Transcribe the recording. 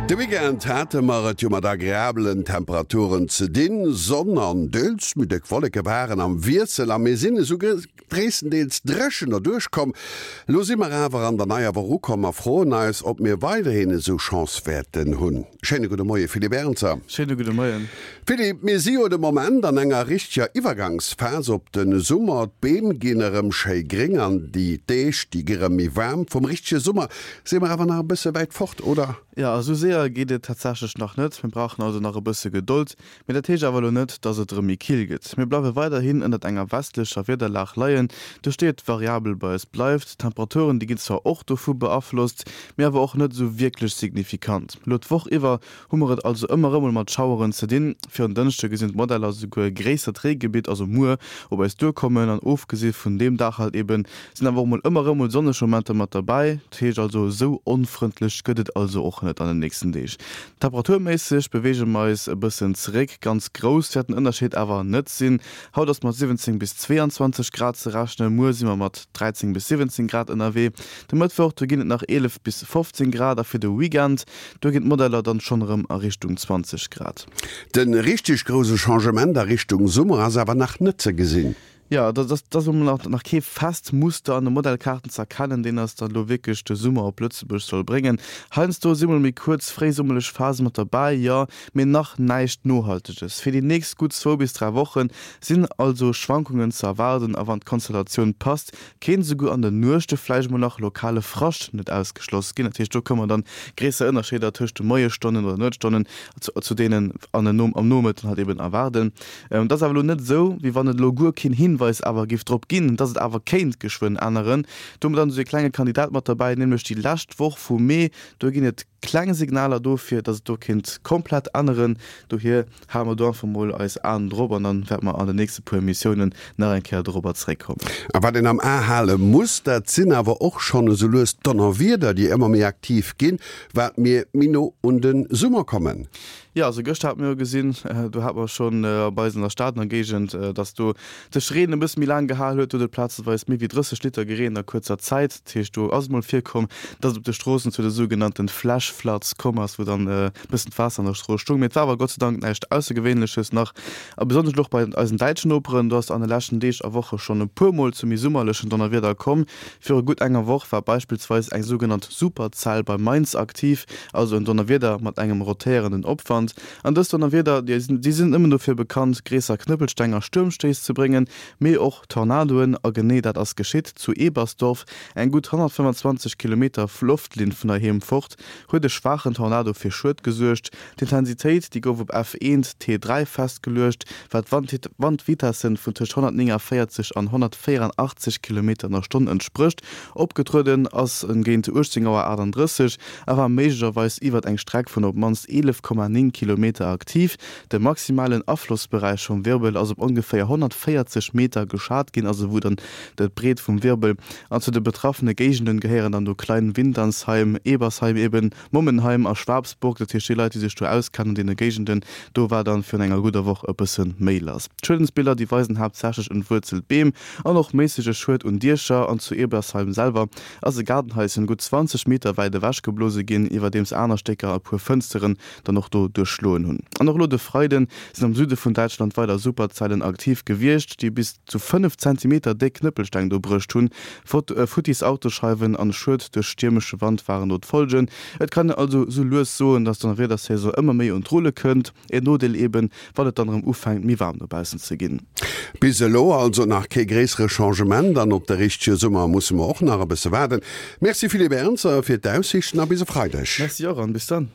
De Weekend hate mer et jo mat agreabelen Temperaturen ze dinn. Sonn an deels méi déck Wolleke waren am Wiessel a mir sinn esou gréisstendeels dréchen derduerch komm. Elo si mer awer an der neier Woch ukomm a froen eis, ob mir weiderhin esou Chance wäerten hunn. Schéine gudde Moie Philippe Ernzer. Schéine gudde Moien. Philippe, mir si jo de Moment an enger richteger Iwwergangsphas op de Summer. D'Beem ginn erëm schéi gréng an déi Deeg, déi gi rëm méi waarm. Vum richtege Summer Si mer awer nach e bësse wäit fort, oder? Jo, esou séier geet et tatsächlech nach net. Mir brauchen also nach e bësse Gedold. Mee dat heescht awer elo net, dass et erëm méi kill gëtt. Mir bleiwe weiderhin ënnert enger westlecher Wiederlag leien, duerch déi et variabel bei eis bleift. D'Temperaturen, déi ginn zwar och dovu beaflosst, mee awer och net esou wierklech signifikant. Elo d'Woch iwwer hu mer et also ëmmer erëm mol mat Schaueren ze dinn. Fir en Dënschde gesinn d'Modeller souguer e gréissert Reegebitt, also muer, op eis duerkommen. An ofgesi vun deem Dag halt eben, sinn awer och mol ëmmer erëm mol sonneg Momenter mat derbäi. Dat heescht also, esou onfrëndlech gëtt et also och net an den nächsten Deeg. Temperaturméisseg beweege mer eis e bëssen zeréck, ganz grouss wäert den Ënnerscheed awer net sinn. Haut ass mat 17 bis 22 Grad ze rechnen, muer si mer mat 13 bis 17 Grad ënnerwee. De Mëttwoch, do ginn et nach 11 bis 15 Grad a fir de Weekend, Do ginn d'Modeller dann schonn erëm a Richtung 20 Grad. De richteg grouse Changement a Richtung Summer ass awer nach net ze gesinn. Jo, et ass elo mol nach kee fest Muster an de Modellkaarten ze erkennen, deen eis dann elo wierklech de Summer op Lëtzebuerg soll bréngen. Heiansdo si mol méi kuerz fréisummerlech Phase mat derbäi, jo, mee nach näischt Nohalteges. Fir déi nächst gutt zwou bis 3 Woche sinn also Schwankungen ze erwaarden a wann d'Konstellatioun passt, Kéint esouguer an den Nuechte vläicht mol nach lokale Frascht net ausgeschloss ginn. Dat heescht, do kënne mer dann gréisser Ënnerscheeder tëscht de Moiesstonnen oder Nuetsstonnen zu deenen an den am Nomëtten halt eben erwaarden. Et ass awer elo net esou, wéi wann et elo guer keen Hinweis awer géif drop ginn, dass et awer kéint geschwënn änneren. Do hu mer dann esou ee klenge Kandidat mat derbäi, nämlech déi lescht Woch vum Mee. Do ginn et kleng Signaler dofir, dass et do kéint komplett änneren. Dohier Hale mer do einfach mol eis Aen drop an dann wäerte mer an den nächste puer Emissiounen nach eng Kéier dorobber zeréckkommen. A wat een am A hale muss, dat sinn awer och schonn esou lues d'Donnerwieder, déi ëmmer méi aktiv ginn, wat mir méi no un de Summer kommen. Jo, also gëschter hate mir jo gesinn, do hate mer schonn bei eis an der Stad an der Géigend, dass do sech Reen e bësse méi laang gehal huet. Do huet et plazeweis méi wéi 30 Liter gereent a kuerzer Zäit. Dat heescht, do ass et mol virkomm, dass et op de Stroossen zu de sougenannten Flash Floods komm ass, wou dann e bëssen d'Waasser an der Strooss stoung. Mee et war awer Gott sei Dank näischt Aussergewéinleches nach. A besonnesch elo och bei eisen däitschen Noperen, do ass et an de leschten Deeg a Woche schonn e puer Mol zu méi summerlechen Donnerwieder komm. Viru gutt enger Woch war beispillsweis eng sougenannt Superzell bei Mainz aktiv, also en Donnerwieder mat engem rotéierenden Opwand. An dës Donnerwieder, déi sinn net nëmmen dofir bekannt, gréisser Knëppelsteng a Stuermstéiss ze bréngen, mee och Tornadoen, a genee dat ass geschitt. Zu Ebersdorf, eng gutt 125 Kilometer Loftlinn vun heiheem fort, huet e schwaachen Tornado fir Schued gesuergt. D'Intensitéit, déi gouf op F1 T3 festgeluecht, wat Wandvitessen vun tëscht 149 an 184 Kilometer an der Stonn entsprécht. Opgetrueden ass en géint 18 Auer 38 a war méiglecherweis iwwert eng Streck vun op d'mannst 11,9 Kilometer aktiv. De maximalen Aflossberäich vum Wirbel ass op ongeféier 140 Meter geschat ginn, also wou dann d'Breet vum Wirbel. An zu de betraffene Géigenden gehéieren dann do Kleinwinternsheim, Ebersheim eben, Mommenheim a Schwabsburg. Dat heescht déi Leit, déi sech do auskennen an deene Géigenden, do war dann virun enger gudder Woch e bësse méi lass. D'Schuedensbiller, déi weisen haaptsächlech entwuerzelt Beem an och méissege Schued un Diecher. An zu Ebersheim selwer ass e Gaardenhaischen gutt 20 Meter wäit ewechgeblose ginn, iwwerdeems aner Stécker e puer Fënsteren dann och do duerchschloen hunn. An och elo de Freide sinn am Süde vun Däitschland weider Superzellen aktiv gewiescht, déi bis zu 5 Zentimeter déck Knëppelsteng do bruecht hunn. Futtis Autoscheiwen an Schued duerch stiermesche Wand waren do d'Folgen. Et kann een also sou lues soen, dass d'Donnerwiedersaison ëmmer méi un d'Rulle kënnt. En Nodeel eben, wann et dann erëm ufänkt méi waarm dobaussen ze ginn. Bis elo also nach kee gréissere Changement an op de richtege Summer musse mer och nach e bësse waarden. Merci Philippe Ernzer fir d'Aussiichten a bis e Freideg. Merci och an bis dann.